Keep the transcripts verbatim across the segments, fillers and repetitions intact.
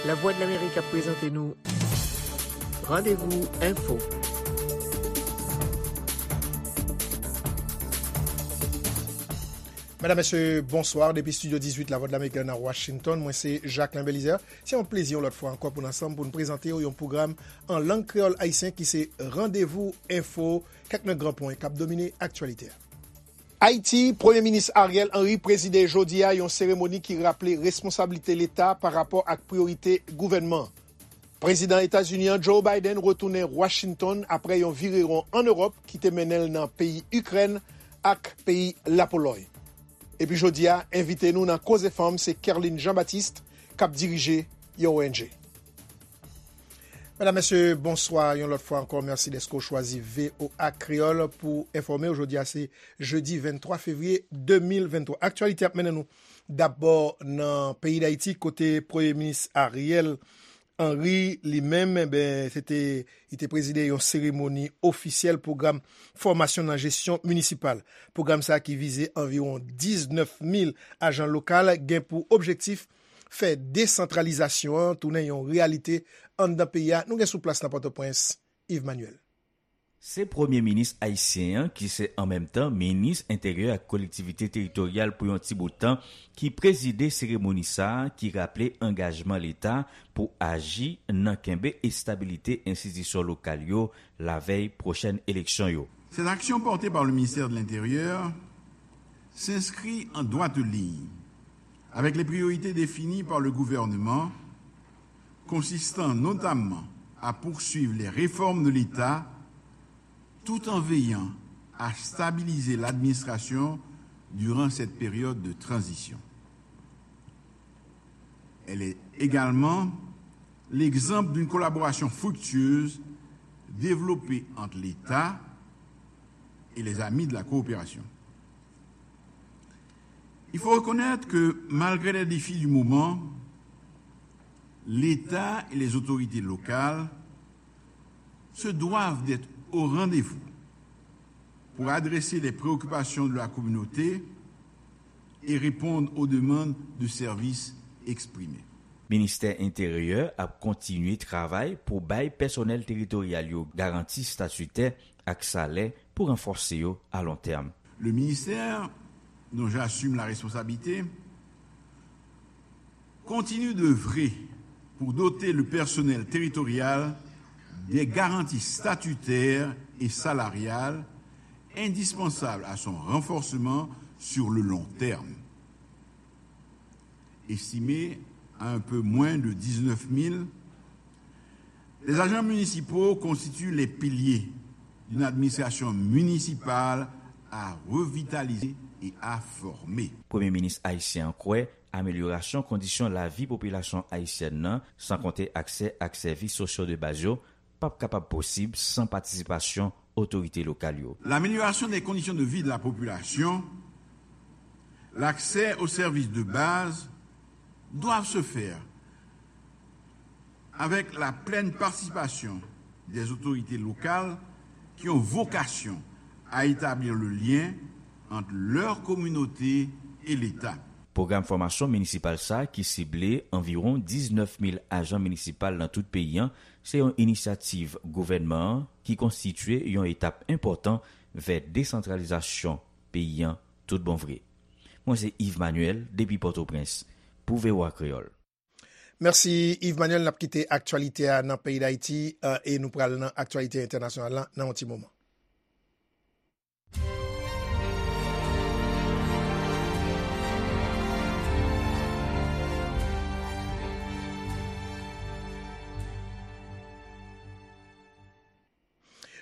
Lavwadlamerik ap prezante nou Randevou Enfo. Medam, mesye, bonswa. Depi estidyo dizuit Lavwadlamerik nan Washington, mwen se Jacquelin Belizaire. Se yon plezi yon lòt fwa ankò pou n ansanm pou n prezante w yon pwogram an lang kreyòl ayisyen ki se Randevou Enfo, kèk nan gran pwen k ap domine aktyalite a. Ayiti, Premye Minis Ariel Henry prezide jodi a yon seremoni ki raple responsablite Leta pa rapò ak priyorite gouvènman. Prezidan Etazini an, Joe Biden, retounen Washington apre yon virewon ann Ewòp ki te mennen l nan peyi Ikrèn ak peyi Lapolòy. Epi jodi a, envite nou nan Koze Fanm se Kerline Jean Baptiste k ap dirije yon O N G. Medam, mesye, bonswa yon lòt fwa ankò. Mèsi dèske w chwazi V O A Kreyòl pou enfòme w. Jodi a se jedi venntwa fevriye de mil venntwa. Aktyalite ap mennen nou dabò nan peyi Dayiti, kote Premye Minis Ariel Henry, li menm, enben, se te, li te prezide yon seremoni ofisyèl pwogram fòmasyon nan jesyon minisipal. Pwogram sa a ki vize anviwon diznèf mil ajan lokal gen pou objektif fè desantralizasyon an tounen yon reyalite anndan peyi a. Nou gen sou plas nan Pòtoprens, Yves Manuel. Se Premye Minis ayisyen an, ki se an menm tan Minis Enteryè ak Kolektivite Teritoryal pou yon ti bout tan, ki prezide seremoni sa a, ki raple angajman Leta pou aji nan kenbe estabilite enstitisyon lokal yo lavèy pwochèn eleksyon yo. Cette action portée par le ministère de l'Intérieur s'inscrit en droite ligne avec les priorités définies par le gouvernement, consistant notamment à poursuivre les réformes de l'État tout en veillant à stabiliser l'administration durant cette période de transition. Elle est également l'exemple d'une collaboration fructueuse développée entre l'État et les amis de la coopération. Il faut reconnaître que, malgré les défis du moment, l'État et les autorités locales se doivent d'être au rendez-vous pour adresser les préoccupations de la communauté et répondre aux demandes de services exprimées. Ministè Enteryè ap kontinye travay pou bay pèsonèl teritoryal yo garanti statitè ak salè pou ranfòse yo a lon tèm. Le ministère dont j'assume la responsabilité continue d'œuvrer pour doter le personnel territorial des garanties statutaires et salariales indispensables à son renforcement sur le long terme. Estimé à un peu moins de dix-neuf mille, les agents municipaux constituent les piliers d'une administration municipale à revitaliser et à former. Premye Minis ayisyen an kwè amelyorasyon kondisyon lavi popilasyon ayisyèn nan, san konte aksè ak sèvis sosyo de baz yo, p ap kapab posib san patisipasyon otorite lokal yo. L'amélioration des conditions de vie de la population, l'accès aux services de base doivent se faire avec la pleine participation des autorités locales qui ont vocation à établir le lien entre leur communauté et l'État. Pwogram fòmasyon minisipal sa a, ki sible anviwon diznèf mil ajan minisipal nan tout peyi an, se yon inisyativ gouvènman an ki konstitye yon etap enpòtan vè desantralizasyon peyi an tout bon vre. Mwen se Yves Manuel depi Pòtoprens pou V O A Kreyòl. Mèsi, Yves Manuel. N ap kite aktyalite a nan peyi Dayiti, eh, e nou pral nan aktyalite entènasyonal la nan yon ti moman.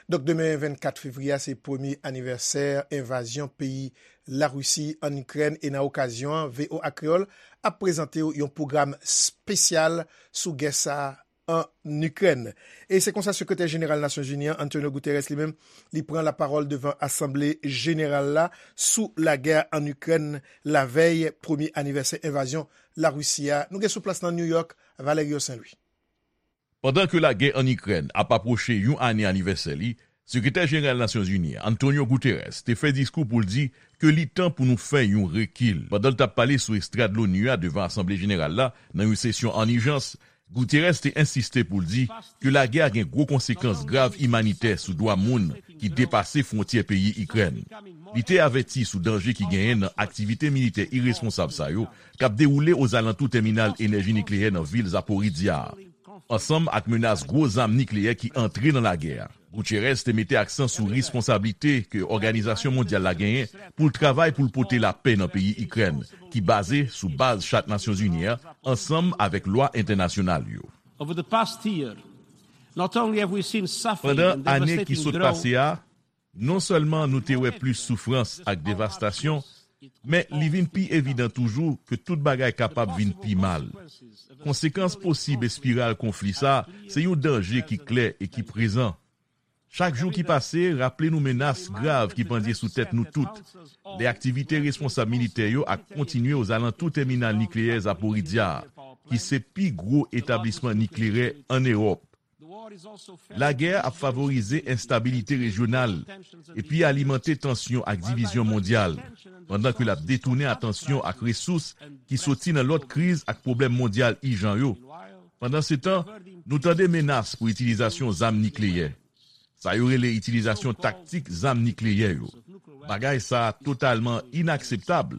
Donk, demen vennkat fevriye a, se premye anivèsè envazyon peyi Larisi ann Ikrèn, e nan okazyon an, V O A Kreyòl ap prezante w yon pwogram espesyal sou gè sa a ann Ikrèn. E se konsa, Sekretè Jeneral Nasyonzini an, Antonio Guterres, li menm, li pran lapawòl devan Asanble Jeneral la sou lagè ann Ikrèn, lavèy premye anivèsè envazyon Larisi a. Nou gen sou plas nan New York, Valerio Saint-Louis. Pandan ke lagè ann Ikrèn ap apwoche yon ane anivèsè li, Sekretè Jeneral Nasyonzini an, Antonio Guterres, te fè diskou pou l di ke li tan pou nou fè yon rekil. Pandan l t ap pale sou estrad Loni a devan Asanble Jeneral la, nan yon sesyon ann ijans, Guterres te ensiste pou l di ke lagè a gen gwo konsekans grav imanitè sou dwa moun ki depase fwontyè peyi Ikrèn. Li te avèti sou danje ki genyen nan aktivite militè iresponsab sa yo k ap dewoule ozalantou tèminal enèji nikleyè nan vil Zaporizhzhia a, ansanm ak menas gwo zam nikleyè ki antre nan lagè a. Guterres te mete aksan sou responsablite ke òganizasyon mondyal la genyen pou l travay pou l pote lapè nan peyi Ikrèn, ki baze sou baz Chat Nasyonzini an, ansanm avèk lwa entènasyonal yo. Over the past year, not only have we seen suffering Pandan and ane ki devastating sot drought, pase a, non sèlman nou te wè plis soufrans ak devastasyon, men li vin pi evidan toujou ke tout bagay kapab vin pi mal. Konsekans posib espiral konfli sa a se yon danje ki klè e ki prezan. Chak jou ki pase raple nou menas grav ki pandye sou tèt nou tout, lè aktivite responsab militè yo ap kontinye ozalantou tèminal nikleyè Zaporizhzhia a, ki se pi gwo etablisman nikleyè ann Ewòp. Lagè a ap favorize enstabilite rejyonal epi alimante tansyon ak divizyon mondyal, pandan ke l ap detounen atansyon ak resous ki soti nan lòt kriz ak pwoblèm mondyal ijan yo. Pandansetan, nou tande menas pou itilizasyon zam nikleyè. Sa yo rele itilizasyon taktik zam nikleyè yo. Bagay sa a totalman inakseptab.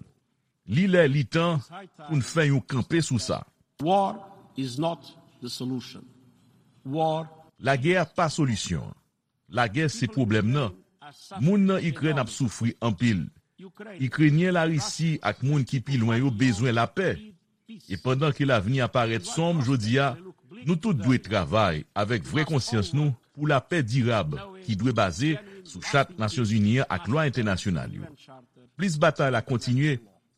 Li lè, li tan pou n fè yon kanpe sou sa. War is not the solution. War Lagè a pa solisyon an. Lagè se pwoblèm nan. Moun nan Ikrèn ap soufri anpil. Ikrenyen, Larisi ak moun ki pi lwen yo bezwen lapè. E pandan ke lavni a parèt sonm jodi a, nou tout dwe travay avèk vrè konsyans nou pou lapè dirab ki dwe baze sou Chat Nasyonzini an ak lwa entènasyonal yo. Plis batay la kontinye,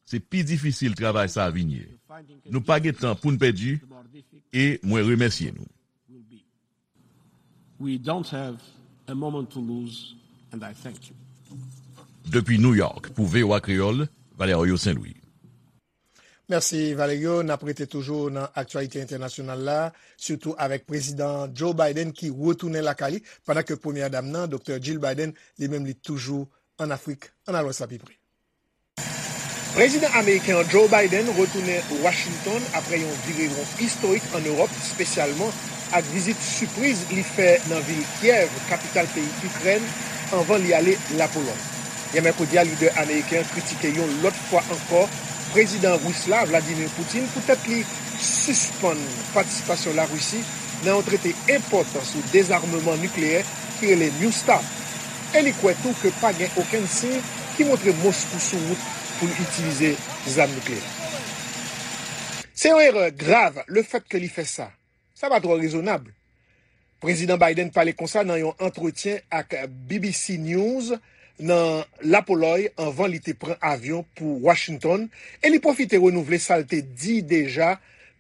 se pi difisil travay sa a vin ye. Nou pa gen tan pou n pèdi, e mwen remèsye nou. We don't have a moment to lose, and I thank you. Depi New York, pou V O A Kreyòl, Valerio Saint-Louis. Mèsi, Valerio. N ap rete toujou nan aktyalite entènasyonal la, sitou avèk Prezidan Joe Biden ki retounen lakay li, pandan ke Premyè Dam nan, Doktè Jill Biden, li menm li toujou ann Afrik. Ann al wè sa pi pre. Prezidan ameriken an Joe Biden retounen Washington apre yon vire won istorik ann Ewòp, espesyalman ak vizit sipriz li fè nan vil Kyèv, kapital peyi Ikrèn, anvan li ale Lapolòy. Yè mèkredi a, lidè ameriken an kritike yon lòt fwa ankò prezidan ris la, Vladimir Putin, poutèt li sispann patisipasyon Larisi nan yon trete enpòtan sou dezamman nikleyè ki rele New START, e li kwè tou ke pa gen okenn siy ki montre Moskou sou wout pou l itilize zam nikleyè. Se yon erè grav lefèt ke li fè sa. Sa pa twò rezonab. Prezidan Biden pale konsa nan yon antretyen ak B B C News nan Lapolòy anvan li te pran avyon pou Washington, e li pwofite renouvle sa l te di deja,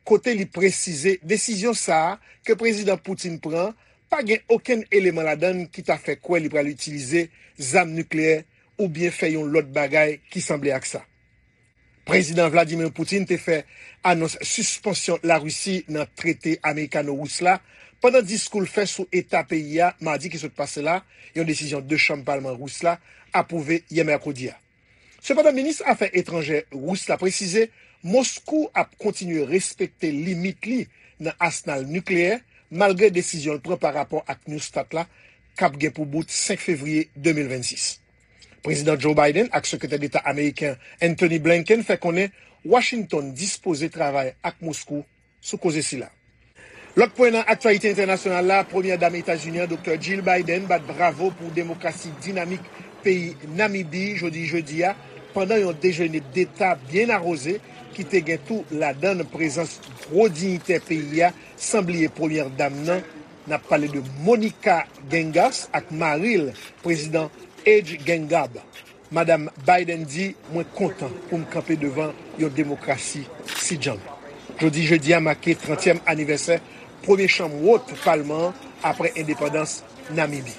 kote li presize desizyon sa a ke Prezidan Putin pran pa gen okenn eleman ladan l ki ta fè kwè li pral itilize zam nikleyè oubyen fè yon lòt bagay ki sanble ak sa. Prezidan Vladimir Putin te fè anons sispansyon Larisi nan trete amerikano-ris la pandan diskou l fè sou eta peyi a madi ki sot pase la, yon desizyon de chanm palman ris la apwouve yè mèkredi a. Sepandan, minis afè etranjè ris la presize Moskou ap kontinye respekte limit li nan asnal nikleyè, malgre desizyon l pran pa rapò ak New START la, k ap gen pou bout senk fevriye de mil vennsis. Prezidan Joe Biden ak Sekretè Deta ameriken Antony Blinken fè konnen Washington dispoze travay ak Moskou sou koze sila. Lòt pwen nan aktyalite entènasyonal la, Premyè Dam Etazini an, Doktè Jill Biden, bat bravo pou demokrasi dinamik peyi Namibi jodi jedi a, pandan yon dejene deta byen awoze ki te gen tou ladan l prezans gwo diyitè peyi a, san bliye Premyè Dam nan, n ap pale de Monica Geingos ak mari l, Prezidan Age Gengab. Madanm Biden di, "Mwen kontan pou m kanpe devan yon demokrasi si djanm." Jodi jedi a make trantyèm anivèsè premye chanm wot palman an apre endepandans Namibi.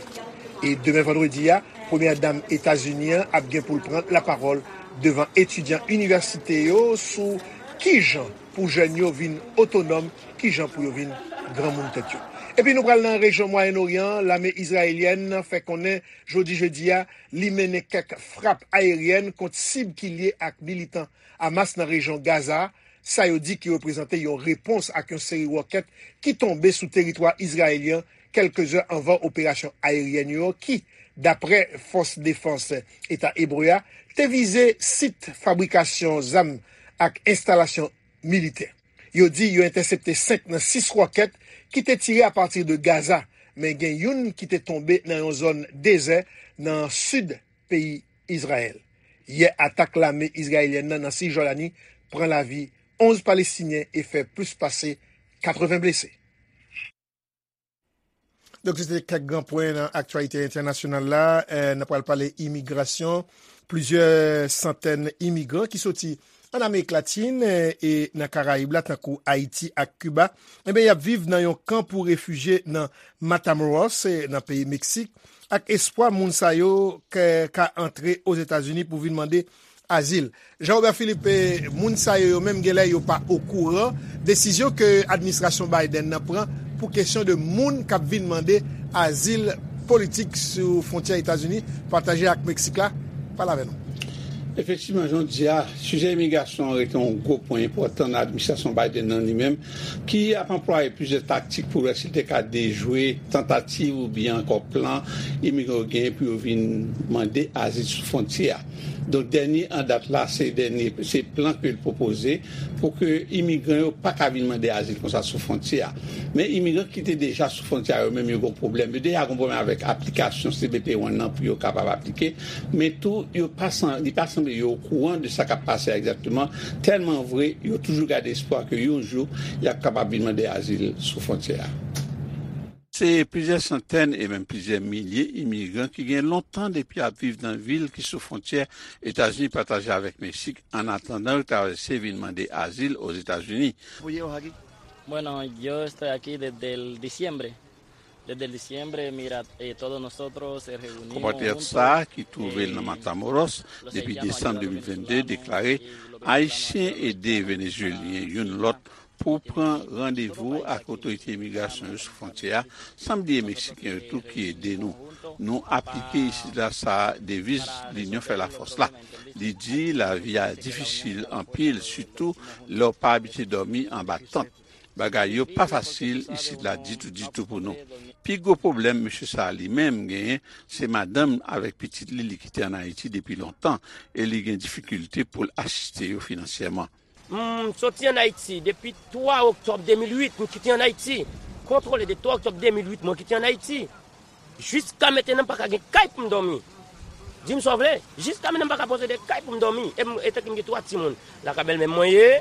E demen vandredi a, Premyè Dam Etazini an ap gen pou l pran lapawòl devan etidyan inivèsite yo sou kijan pou jèn yo vin otonòm, kijan pou yo vin granmoun tèt yo. Epi nou pral nan rejyon Mwayen Oryan an, lame izrayelyèn fè konnen jodi jedi a, li mennen kèk frap ayeryèn kont sib ki lye ak militan Hamas nan rejyon Gaza, Sa yo di ki reprezante yon repons ak yon seri wòkèt ki tonbe sou teritwa izrayelyen kèlke zè anvan operasyon ayeryèn yo ki, dapre Fòs Defans Eta Ebre a, te vize sit fabrikasyon zam ak enstalasyon militè. Yo di yo entèsepte senk nan sis wòkèt ki te tire apati de Gaza, men gen youn ki te tonbe nan yon zòn dezè nan sid peyi Izrayèl. Yè, atak lame izrayelyèn nan nan Sijòdani pran lavi onz Palestinyen e fè plis pase katreven blese. Donk, se te kèk gran pwen nan aktyalite entènasyonal la. Eh, n ap pral pale imigrasyon. Plizyè santèn imigran ki soti an Amerik Latin, eh, e nan Karayib la, tankou Ayiti ak Kiba, enben, y ap viv nan yon kan pou refijye nan Matamoros, eh, nan peyi Meksik, ak espwa moun sa yo ka, ka antre Ozetazini pou vin mande azil. Jean Robert Philippe, eh, moun sa yo, yo menm, genlè yo pa okouran desizyon ke administrasyon Biden nan pran pou kesyon de moun k ap vin mande azil politik sou fwontyè Etazini pataje ak Meksik la. Pale avè nou. Efektivman, jan w di a, sijè imigrasyon an rete yon gwo pwen enpòtan nan administrasyon Biden nan li menm, ki ap anplwaye plizyè taktik pou wè si l te ka dejwe tantativ oubyen ankò plan imigran yo genyen pou yo vin mande azil sou fwontyè a. Donk, dènye an dat la, se dènye, se plan ke l pwopoze pou ke imigran yo pa ka vin mande azil konsa sou fwontyè a. Men imigran ki te deja sou fwontyè a, yo menm, yo gen pwoblèm. Yo deja gen pwoblèm avèk aplikasyon C B P One nan pou yo kapab aplike. Men tou, yo pa san-, li pa sanble yo okouran de sa k ap pase a egzakteman. Tèlman vre, yo toujou gade espwa ke yon jou, y ap kapab vin mande azil sou fwontyè a. Se plizyè santèn e menm plizyè milye imigran ki gen lontan depi y ap viv nan vil ki sou fwontyè Etazini pataje avèk Meksik, annatandan yo travèse vin mande azil Ozetazini. Bueno, yo estoy aquí desde el diciembre. Desde el diciembre, mira, eh, todos nosotros se reunimos Konpatriyòt sa a, ki twouve l nan Matamoros depi desanm de mil vennde, deklare Ayisyen ede Venezuelyen youn lòt pou pran randevou ak otorite imigrasyon yo sou fwontyè a, san bliye Meksiken yo tou ki ede nou. Nou aplike isit la sa deviz Linyon fè lafòs la. Li di lavi a difisil anpil, sitou lè w pa abitye dòmi anba tant. Bagay yo pa fasil isit la ditou, ditou pou nou. Pi gwo pwoblèm mesye sa a li menm genyen, se madanm avèk pitit li, li kite ann Ayiti depi lontan, e li gen difikilte pou l asiste yo finansyèman. M soti ann Ayiti depi twa oktòb de mil uit, m kite ann Ayiti. Kontwole de twa oktòb de mil uit, mwen kite ann Ayiti. Jiska mentnan, m pa ka gen kay pou m dòmi. Di m sa w vle, jiska mentnan, m pa ka posede kay pou m dòmi. E m, etanke m gen twa timoun. Lakay bèlmè m mwen ye,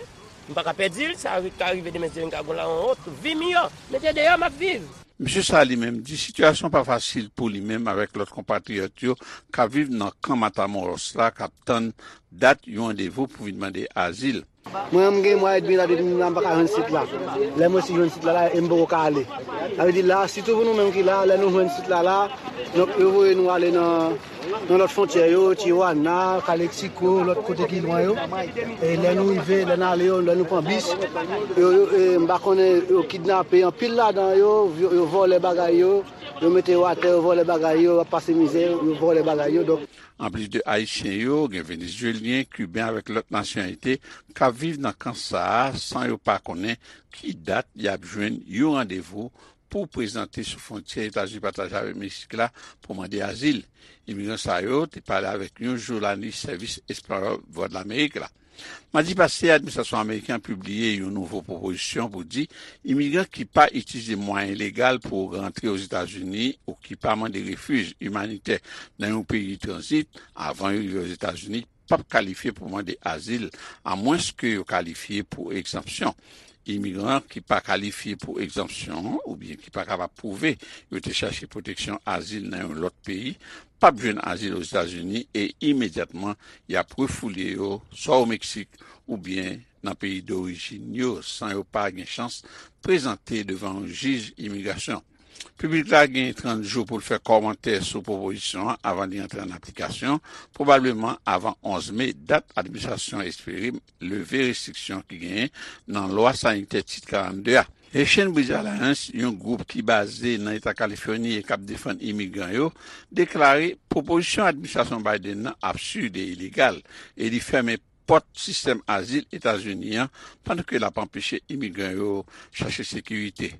m pa ka pèdi l, sa ri-, ka rive demen si m ka gon la yon lòt vi miyò. Men se deyò m ap viv. Mesye sa a li menm di sitiyasyon pa fasil pou li menm avèk lòt konpatriyòt yo k ap viv nan kan Matamoros la k ap tann dat yon randevou pou vin mande azil. Mwen menm, m gen mwa edmi la depi m la, m pa ka jwenn sit la. Lè m resi jwenn sit la, la, e m poko ka ale. Sa vle di la, sitou pou nou menm ki la, lè nou jwenn sit la, la, donk, yo voye nou ale nan, nan lòt fwontyè yo, Tijuana, Calexico, lòt kote ki lwen yo. E lè nou rive, lè n ale yo, lè nou pran bis, yo, yo, e, m pa konnen, yo kidnape anpil ladan yo, yo, yo vòlè bagay yo, yo mete yo atè, yo vòlè bagay yo, yo ap pase mizè, yo vòlè bagay yo. Donk, Anplis de Ayisyen yo, gen Venezuelyen, Kiben avèk lòt nasyonalite k ap viv nan kan sa a san yo pa konnen ki dat y ap jwenn yon randevou pou prezante sou fwontyè Etazini pataje avèk Meksik la pou mande azil. Imigran sa yo te pale avèk yon jounalis sèvis espanyòl Vwadlamerik la. Madi pase, administrasyon ameriken an pibliye yon nouvo pwopozisyon pou di imigran ki pa itilize mwayen legal pou rantre Ozetazini ou ki pa mande refij imanitè nan yon peyi tranzit avan yo rive Ozetazini p ap kalifye pou mande azil, amwenske yo kalifye pou egzanpsyon. Imigran ki pa kalifye pou egzanpsyon an oubyen ki pa kapab pwouve yo te chache pwoteksyon azil nan yon lòt peyi p ap jwenn azil Ozetazini e imedyatman y ap refoule yo swa o Meksik oubyen nan peyi dorijin yo san yo pa gen chans prezante devan yon jij imigrasyon. Piblik la gen trant jou pou l fè kòmantè sou pwopozisyon an avan li antre an aplikasyon, pwobableman avan onz me, dat administrasyon an espere leve restriksyon ki genyen nan lwa sanitè Tit karannde a. Haitian Bridge Alliance, yon gwoup ki baze nan Eta Kalifòni e k ap defann imigran yo, deklare pwopozisyon administrasyon Biden nan absid e ilegal, e li fèmen pòt sistèm azil Etazini an, pandan ke l ap anpeche imigran yo chache sekirite.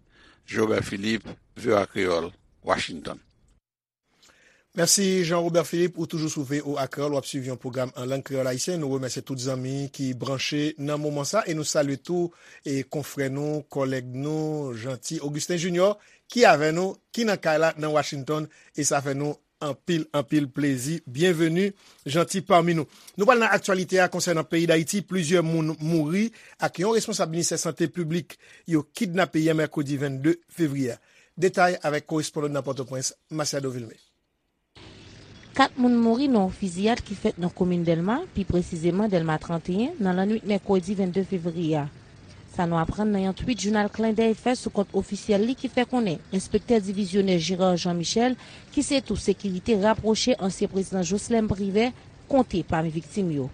Jean Robert Philippe, V O A Kreyòl, Washington. Mèsi Jean Robert Philippe, ou toujou sou V O A Kreyòl, w ap swiv yon pwogram an lang kreyòl ayisyen. Nou remèsye tout zanmi ki branche nan moman sa e nou salye tou e konfrè nou, kòlèg nou, Jeanty Augustin Junior, ki avè nou, ki nan kay la nan Washington, e sa fè nou anpil, anpil plezi. Byenveni, Jeanty, pami nou. Nou pral nan aktyalite a konsènan peyi Dayiti. Plizyè moun mouri ak yon responsab ministè sante piblik yo kidnape yè mèkredi vennde fevriye a. Detay avèk korespondan nan Pòtoprens, Masiado Vilmé. Kat moun mouri nan yon fiziyad ki fèt nan komin Dèlma, pi presizeman Dèlma trannteyen, nan lannwit mèkredi vennde fevriye a. Sa nou aprann nan yon twit jounal Clin d'œil fè sou kont ofisyèl li ki fè konnen enspektè divizyonè Gérard Jean Michel, ki se tou sekirite rapwoche ansyen prezidan Jocelerme Privert, konte pami viktim yo.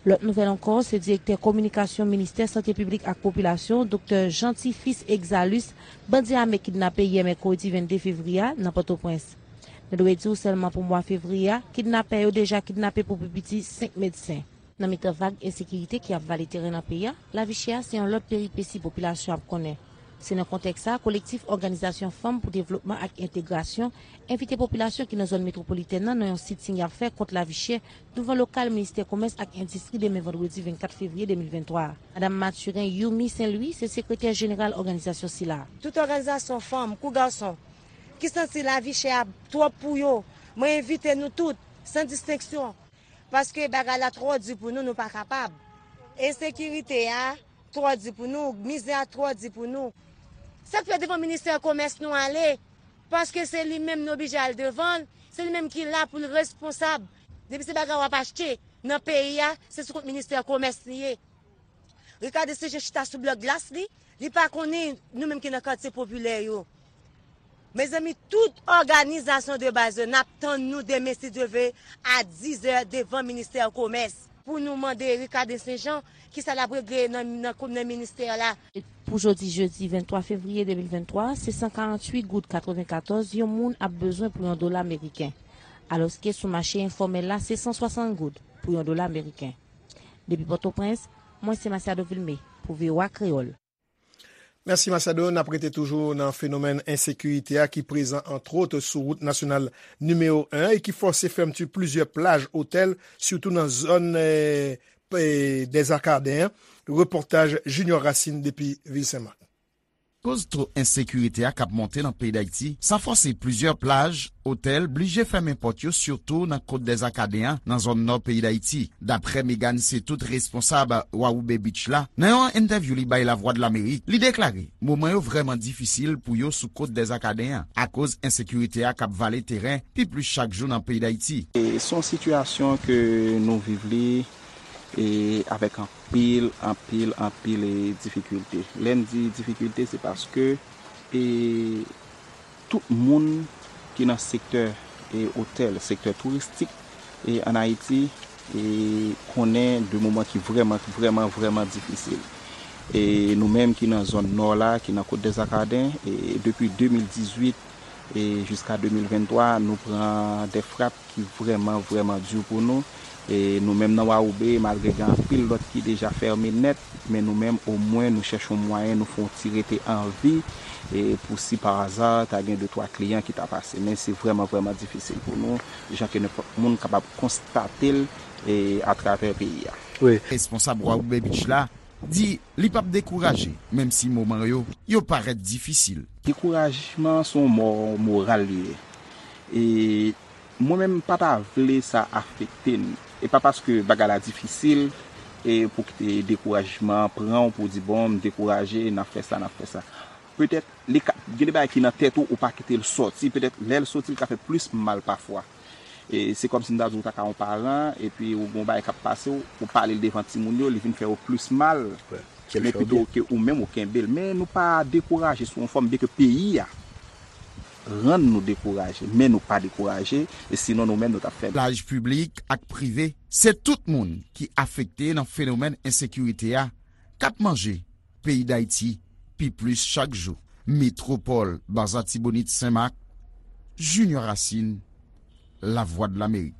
Lòt nouvèl ankò, se direktè kominikasyon ministè sante piblik ak popilasyon, doktè Jeanty Fils Exalus, bandi ame kidnape yè mèkredi vennde fevriye a nan Pòtoprens. Nou dwe di w sèlman pou mwa fevriye a, kidnapè yo deja kidnape pou pi piti senk medsen. Nan mitan vag ensekirite ki ap vale teren nan peyi a, lavi chè a se yon lòt peripesi popilasyon ap konnen. Se nan kontèks sa a, Kolektif Òganizasyon Fanm pou Devlopman ak Entegrasyon envite popilasyon ki nan zòn metwopolitèn nan nan yon sitin y ap fè kont lavi chè douvan lokal Ministè Komès ak Endistri demen vandredi vennkat fevriye de mil venntwa a. Madanm Mathurin Youmi Saint Louis se sekretè jeneral òganizasyon sila a. Tout òganizasyon fanm kou gason ki santi lavi chè a twòp pou yo, mwen envite nou tout, san distenksyon, paske bagay la twò di pou nou, nou pa kapab. Ensekirite a twò di pou nou, mizè a twò di pou nou. Sa k fè devan ministè komès nou ale, paske se li menm nou oblije al devan l, se li menm ki la pou l responsab. Depi se bagay w ap achte nan peyi a, se sou kont ministè komès li ye. Ricardo se jan chita sou blòk glas li, li pa konnen nou menm ki nan katye popilè yo. Mezanmi, tout òganizasyon de baz yo, n ap tann nou demen si Dye ve a dizè devan ministè komès pou nou mande Ricardo Saint Jean kisa l ap regle nan nan nan ministè la. Pou jodi jedi venntwa fevriye de mil venntwa, se san karanntuit goud katrevenkatòz yon moun ap bezwen pou yon dola meriken, alòske sou mache enfòmèl la se san swasant goud pou yon dola meriken. Depi Pòtoprens, mwen se Masiado Vilmé pou V O A Kreyòl. Mèsi Masiado, n ap rete toujou nan fenomèn ensekirite a ki prezan antwòt sou wout nasyonal nimewo en e ki fòse fèmti plizyè plaj otèl, sitou nan zòn Dèzakaden an. Repòtaj Junior Racine depi vil Senmak. Akoz to ensekirite a k ap monte nan peyi Dayiti, sa fòse plizyè plaj, otèl blije fèmen pòt yo sitou nan Kot Dèzakaden an nan zòn nò peyi Dayiti. Daprè Megan Setout, responsab Wawoube Beach la, nan yon entèvyou li bay Lavwadlamerik, li deklare moman yo vrèman difisil pou yo sou Kot Dèzakaden an akoz ensekirite a k ap vale teren pi plis chak jou nan peyi Dayiti. Se yon sitiyasyon ke nou viv li e avèk anpil, anpil, anpil e difikilte. Lè n di difikilte, se paske e tout moun ki nan sektè e otèl, sektè touristik e ann Ayiti e konnen de moman ki vrèman, vrèman, vrèman difisil. E nou menm ki nan zòn nò la, ki nan Kot Dèzakaden, e depi de mil dizuit e jiska de mil venntwa, nou pran de frap ki vrèman, vrèman di pou nou. E nou menm nan Wawoube, malgre gen anpil lòt ki deja fèmen nèt, men nou menm, omwen, nou chèche yon mwayen, nou fè yon ti rete an vi, e pou si pa aza, ta gen de twa kliyan ki ta pase. Men se vrèman, vrèman difisil pou nou, jan ke nenpòt moun kapab konstate l e atravè peyi a. Responsab Wawoube Beach la di li p ap dekouraje, menm si moman yo, yo parèt difisil. Dekourajman se yon mò moral li ye. E mwen menm m pa ta vle sa afekte n. E pa paske bagay la difisil e pou kite dekourajman an pran w pou w di bon, m dekouraje, n ap fè sa, n ap fè sa. Petèt li ka gen de bagay ki nan tèt ou, ou pa kite l sòti, petèt lè l sòti l ka fè plis mal pafwa. E se kòmsi m ta di w ta ka yon paran epi ou gen yon bagay k ap pase w, ou pale l devan timoun yo, li vin fè yo plis mal. Men pito ke ou menm ou kenbe l. Men nou pa dekouraje sou yon fòm byenke peyi a rann nou dekouraje, men nou pa dekouraje, e sinon nou menm nou t ap fè. Plaj piblik ak prive, se tout moun ki afekte nan fenomèn ensekirite a k ap manje peyi Dayiti pi plis chak jou. Metwopòl Baza Tibonit Senmak, Junior Racine, Lavwadlamerik.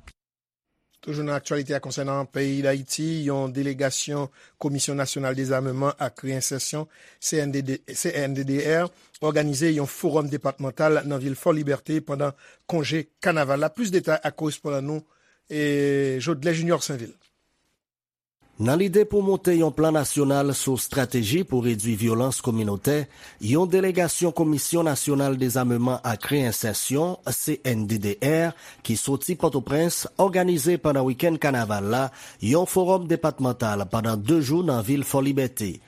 Toujou nan aktyalite a konsènan peyi Dayiti, yon delegasyon Komisyon Nasyonal Dezameman ak Reyensèsyon, C N D D, C N D D R, òganize yon fowòm depatmantal nan vil Fò Libète pandan konje kanaval la. Plis detay ak korespondan nou, e, Jodlè Junior Sainvil. Nan lide pou monte yon plan nasyonal sou estrateji pou redwi vyolans kominotè, yon delegasyon Komisyon Nasyonal Dezameman ak Reyensèsyon, C N D D R, ki soti Pòtoprens, òganize pandan wikenn kanaval la yon fowòm depatmantal pandan de jou nan vil Fò Libète.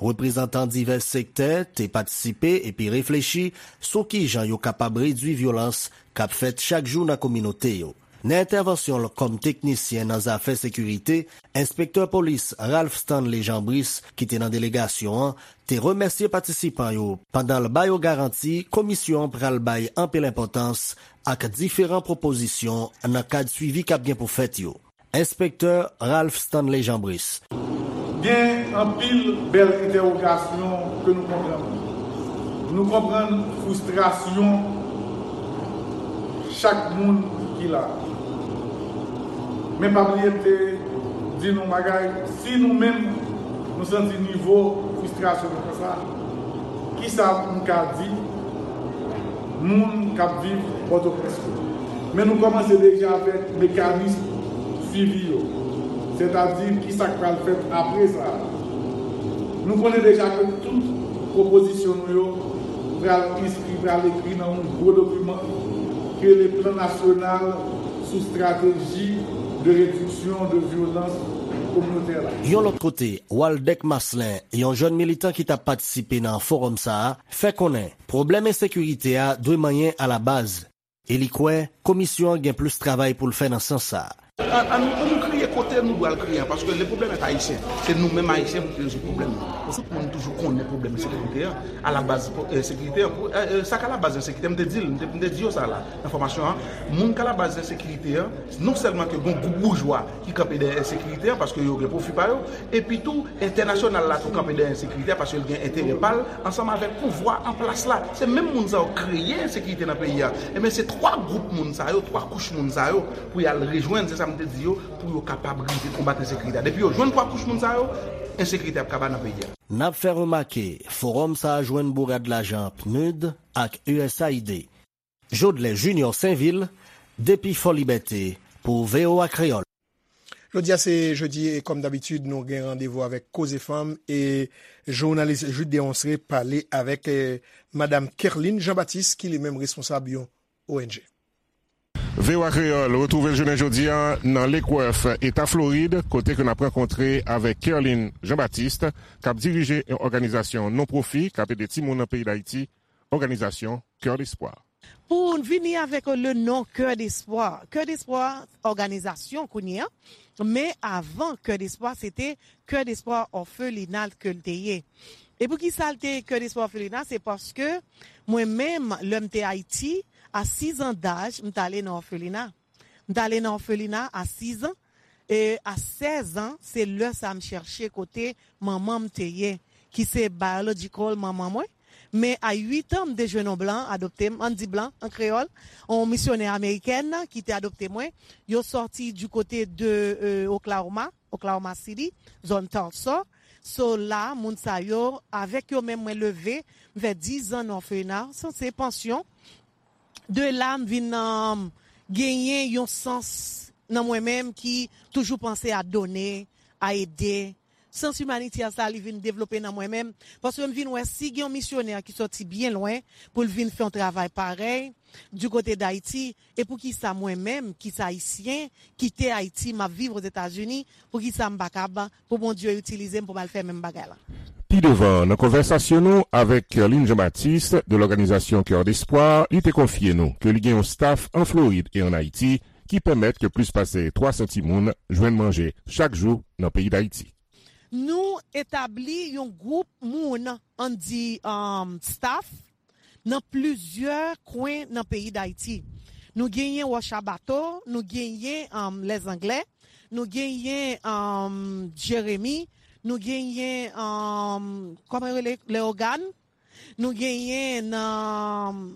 Reprezantan divès sektè te patisipe epi reflechi sou kijan yo kapab redwi vyolans k ap fèt chak jou nan kominote yo. Nan entèvansyon l kòm teknisyen nan zafè sekirite, enspektè polis Ralph Stanley Jean Brice, ki te nan delegasyon an, te remèsye patisipan yo pandan l ba yo garanti komisyon an pral bay anpil enpòtans ak diferan pwopozisyon nan kad swivi k ap gen pou fèt yo. Enspektè Ralph Stanley Jean Brice. Gen anpil bèl entèwogasyon ke nou konprann. Nou konprann fristrasyon chak moun ki la. Men pa bliye m te di nou bagay, si nou menm nou santi nivo fristrasyon nou konsa, kisa m ka di moun k ap viv Pòtoprens yo? Men nou kòmanse deja avèk mekanis swivi yo, sètadi kisa k pral fèt apre sa a. Nou konnen deja ke tout pwopozisyon nou yo pral enskri, pral ekri nan yon gwo dokiman ki rele Plan Nasyonal sou Strateji de Rediksyon de Vyolans Kominotè la. Yon lòt kote, Waldeck Marcelin, yon jèn militan ki t ap patisipe nan fowòm sa a, fè konnen pwoblèm ensekirite a dwe manyen alabaz, e li kwè komisyon an gen plis travay pou l fè nan sans sa a. An, an, an nou kriye kote nou dwe al kriye an, paske le problème est haïtien. Se nou menm Ayisyen pou ki rezoud pwoblèm nan. Tout moun toujou konnen pwoblèm ensekirite an, alabaz ensekirite an. Pou, e, e, sa k alabaz ensekirite an, m te di l, m te, m te di yo sa la, nan fòmasyon an. Moun k alabaz ensekirite an, non sèlman ke gon gwoup boujwa ki kanpe dèyè ensekirite an, paske yo gen pwofi pa yo, epi tou, entènasyonal la tou kanpe dèyè ensekirite a, paske l gen enterè pa l, ansanm avèk pouvwa an plas la. Se menm moun sa yo kreye ensekirite nan peyi a. Ebyen, se twa gwoup moun sa yo, twa kouch moun sa yo, pou y al rejwenn, se sa m te di yo, pou yo kapab rive konbat ensekirite a. Depi yo jwenn twa kouch moun sa yo, ensekirite ap kaba nan peyi a. N ap fè remake, fowòm sa a jwenn bourad lajan PNUD ak U S A I D. Jodlè Junior Sainvil, depi Fò Libète, pou V O A Kreyòl. Jodi a se jedi e kòm dabitid, nou gen randevou avèk Koze Fanm e jounalis Jude Deronceray pale avèk, e, Madam Kerline Jean-Baptiste, ki li menm responsab yon O N G. V O A Kreyòl retwouve l jounen jodi a nan Lake Worth, Eta Florid, kote ke n ap rankontre avèk Kerline Jean-Baptiste, k ap dirije yon òganizasyon non pwofi k ap ede timoun nan peyi Dayiti, òganizasyon Cœur d'Espoir. Pou n vini avèk le non Cœur d'Espoir. Cœur d'Espoir, òganizasyon kounye a, men avan Cœur d'Espoir, se te Cœur d'Espoir Orphelinat ke l te ye. E poukisa l te Cœur d'Espoir Orphelinat? Se paske mwen menm, lè m te Ayiti, a sis an daj, m t ale nan òfelina. M t ale nan òfelina a sis an, e a sèz an, se lè sa a m chèche kote manman m te ye, ki se biological manman mwen. Men a uit an, m te jwenn yon blan adopte m, ann di blan an kreyòl, yon misyonè amerikèn ki te adopte mwen. Yo sòti du côté de, euh, Oklahoma, Oklahoma City, zòn Tulsa. So la, moun sa yo, avèk yo menm mwen leve, m fè diz an nan òfelina, sa se pansyon. De la, m vin, um, genyen yon sans nan mwen menm ki toujou panse a done, a ede. Sans imanitè sa, li vin devlope nan mwen menm, paske m vin wè si gen yon misyonè ki sòti byen lwen pou l vin fè yon travay parèy du côté d'Haïti, e poukisa mwen menm, ki se Ayisyen, kite Ayiti, m ap viv Ozetazini, poukisa m pa kab pou Bondye itilize m pou m al fè menm bagay la? Pi devan, nan konvèsasyon nou avèk Kerline Jean-Baptiste de lòganizasyon Cœur d'Espoir, li te konfye nou ke li gen yon staff an Florid e ann Ayiti ki pèmèt ke plis pase twa san timoun jwenn manje chak jou nan peyi Dayiti. Nou etabli yon gwoup moun, ann di, um, staff, nan plizyè kwen nan peyi Dayiti. Nou genyen Wòch a Bato, nou genyen, um, Lèzanglè, nou genyen, um, Jeremi, nou genyen, um, kòman yo rele, Leyogàn, nou genyen nan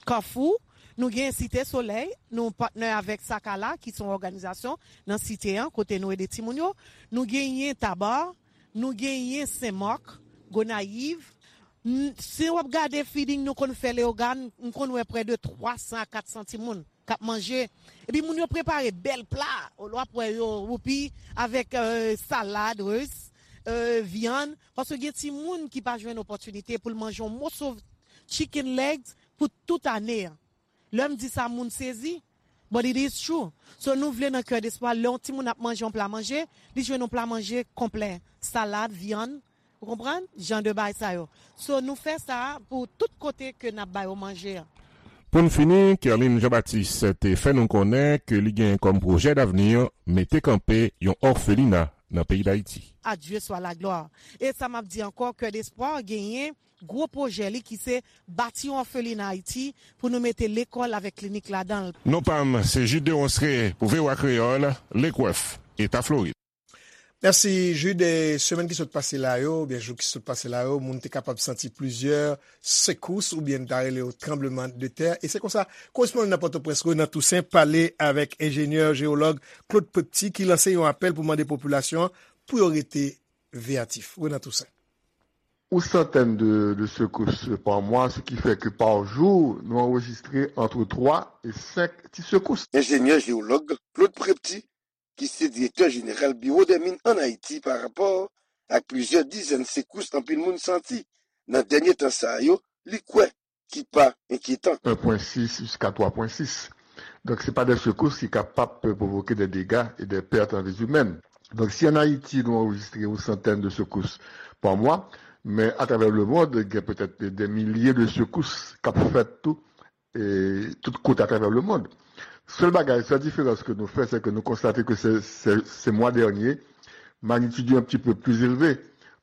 Kafou, Nou gen Site Solèy, nou patnè avèk Sakala, ki se yon òganizasyon nan Site an, kote nou ede timoun yo. Nou genyen Taba, nou genyen Senmak, Gonayiv. N- Si w ap gade feeding nou konn fè Leyogàn, m konn wè prè de twa san a kat san timoun k ap manje. Epi moun yo prepare bèl pla, w ap wè yo woupi avèk euh, salad, ris, euh, vyann. Paske gen timoun ki pa jwenn opòtinite pou l manje yon moso chicken legs pou tout ane an. Lè m di sa, moun sezi. But it is true. So nou vle nan Kè Despwa, lè yon timoun ap manje yon pla manje, li jwenn yon pla manje konplè. Salad, vyann, ou konprann? Jan de bagay sa yo. So nou fè sa pou tout kote ke n ap ba yo manje an. Pou n fini, Kerline Jean-Baptiste te fè nou konnen ke li gen kòm pwojè davni mete kanpe yon òfelina nan peyi Dayiti. A Dieu soit la gloire. E sa m ap di ankò, Kè Despwa genyen gwo pwojè li ki se bati yon òfelina Ayiti pou nou mete lekòl avèk klinik ladan l. Non pa m, se Jude Deronceray pou V O A Kreyòl, Lake Worth, Eta Florid. Mèsi, Jude. E semèn ki sot pase la yo, oubyen jou ki sot pase la yo, moun te kapab santi plizyè sekous oubyen n ta rele yo tranbleman de tè. E se konsa, korespondan nan Pòtoprens, Renan Toussaint, pale avèk enjenyè jewològ Claude Prepty ki lanse yon apèl pou mande popilasyon an pou yo rete veyatif. Renan Toussaint. Ou santèn de, de sekous pa mwa, ce qui fait que par jour, nou anrejistre entre trois et cinq ti sekous. Enjenyè jewològ Claude Prepty, ki se direktè jeneral Biwo dè Min ann Ayiti, pa rapò ak plizyè dizèn sekous anpil moun santi nan dènye tan sa yo, li kwè ki pa enkyetan. Un point six jusqu'à trois point six. Donk, se pa de sekous ki kapab pwovoke de dega e de pèt an vi imèn. Donk, si ann Ayiti, nou anrejistre yon santèn de sekous pa mwa, men atravè lemond, gen petèt de milye de sekous k ap fèt tou, e tout kote atravè lemond. Sèl bagay, sèl diferans ke nou fè, se ke nou konstate ke se, se, se mwa dènye, magnitid yo un petit peu plus élevé,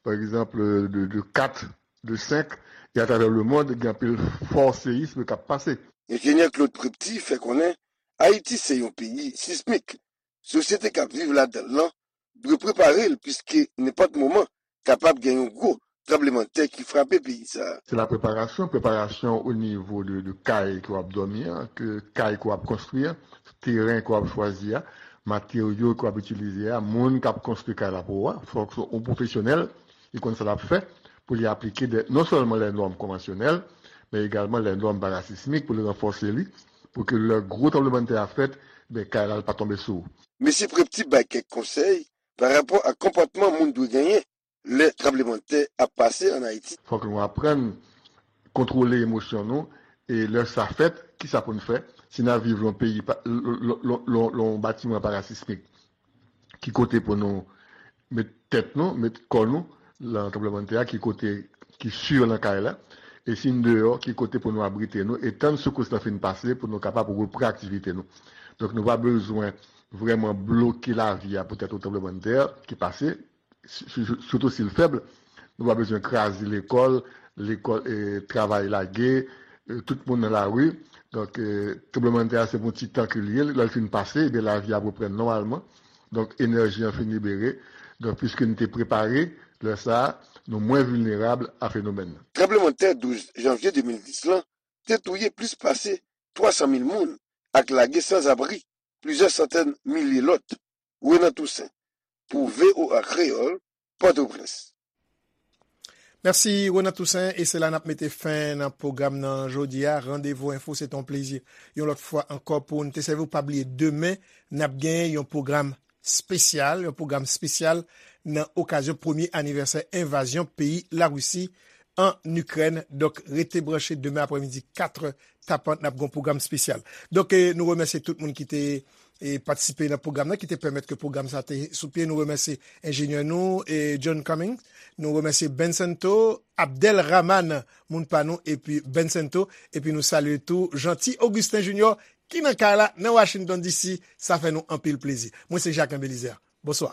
par exemple, de, de kat, de senk, e atravè lemond, gen anpil fò seyism k ap pase. Enjenyè Claude Prepty fè konnen Ayiti se yon peyi sismik. Sosyete k ap viv ladan l lan dwe prepare l, piske nenpòt moman kapab gen yon gwo tranblemanntè ki frape peyi sa a. Se la preparasyon, preparasyon o nivo de, de kay ke w ap dòmi an, ke kay ke w ap konstwi an, teren ke w ap chwazi a, materyo ke w ap itilize a, moun k ap konstwi kay la pou ou a, fòk se yon pwofesyonèl ki konn sa l ap fè pou li aplike de, non sèlman lè nòm konvansyonèl, men egalman lè nòm parasismik pou li ranfòse li, pou ke lè gwo tranblemanntè a fèt, ben, kay la pa tonbe sou ou. Mesye Prepty bay kèk konsèy pa rapò ak konpòtman moun dwe genyen lè tranblemanntè ap pase ann Ayiti. Fòk nou aprann kontwole emosyon nou, e lè sa fèt, kisa pou n fè? Si n ap viv lan peyi, pa- l- l- l- l- l- yon batiman parasismik, ki kote pou nou met tèt nou, met kò nou lan tranblemanntè a, ki kote ki si lan kay la, e si n deyò, ki kote pou nou abrite nou, e tann sekous lan fin pase pou nou kapab repran aktivite nou. Donk, nou pa bezwen vrèman bloke lavi a poutèt yon tranblemanntè ki pase, si- si- sitou si l fèb. Nou pa bezwen kraze lekòl, lekòl, e, travay lage, e, tout moun nan lari. Donk, e, tranblemanntè a se pou yon ti tan ke l ye, lè l fin pase, ebyen lavi ap reprann nòmalman. Donk, enèji an fin libere. Donk, piske n te prepare, lè sa a, nou mwen vilnerab a fenomèn nan. Tranblemanntè douz janvye de mil dis lan te touye plis pase twa san mil moun ak lage sanzabri plizyè santèn milye lòt. Renan Toussaint, pou V O A Kreyòl, Pòtoprens. Mèsi, Renan Toussaint, e se la n ap mete fen nan pwogram nan jodi a. Randevou Enfo, se t on plezi yon lòt fwa ankò pou n te sèvi w. Pa bliye, demen, n ap gen yon pwogram espesyal, yon pwogram espesyal nan okazyon premye anivèsè envazyon peyi Larisi an Ikrèn. Donk, rete branche demen aprèmidi, kat è tapan, n ap gen yon pwogram espesyal. Donk, e, nou remèsye tout moun ki te, e, patisipe nan pwogram nan, ki te pèmèt ke pwogram sa te sou pye. Nou remèsye enjenyè nou, e, John Cummings. Nou remèsye Bencento, Abdel Rahman, moun pa nou, epi Bencento. Epi nou salye tou Jeanty Augustin Junior, ki nan kay la, nan Washington D C. Sa fè nou anpil plezi. Mwen se Jacques Belizaire. Bonswa.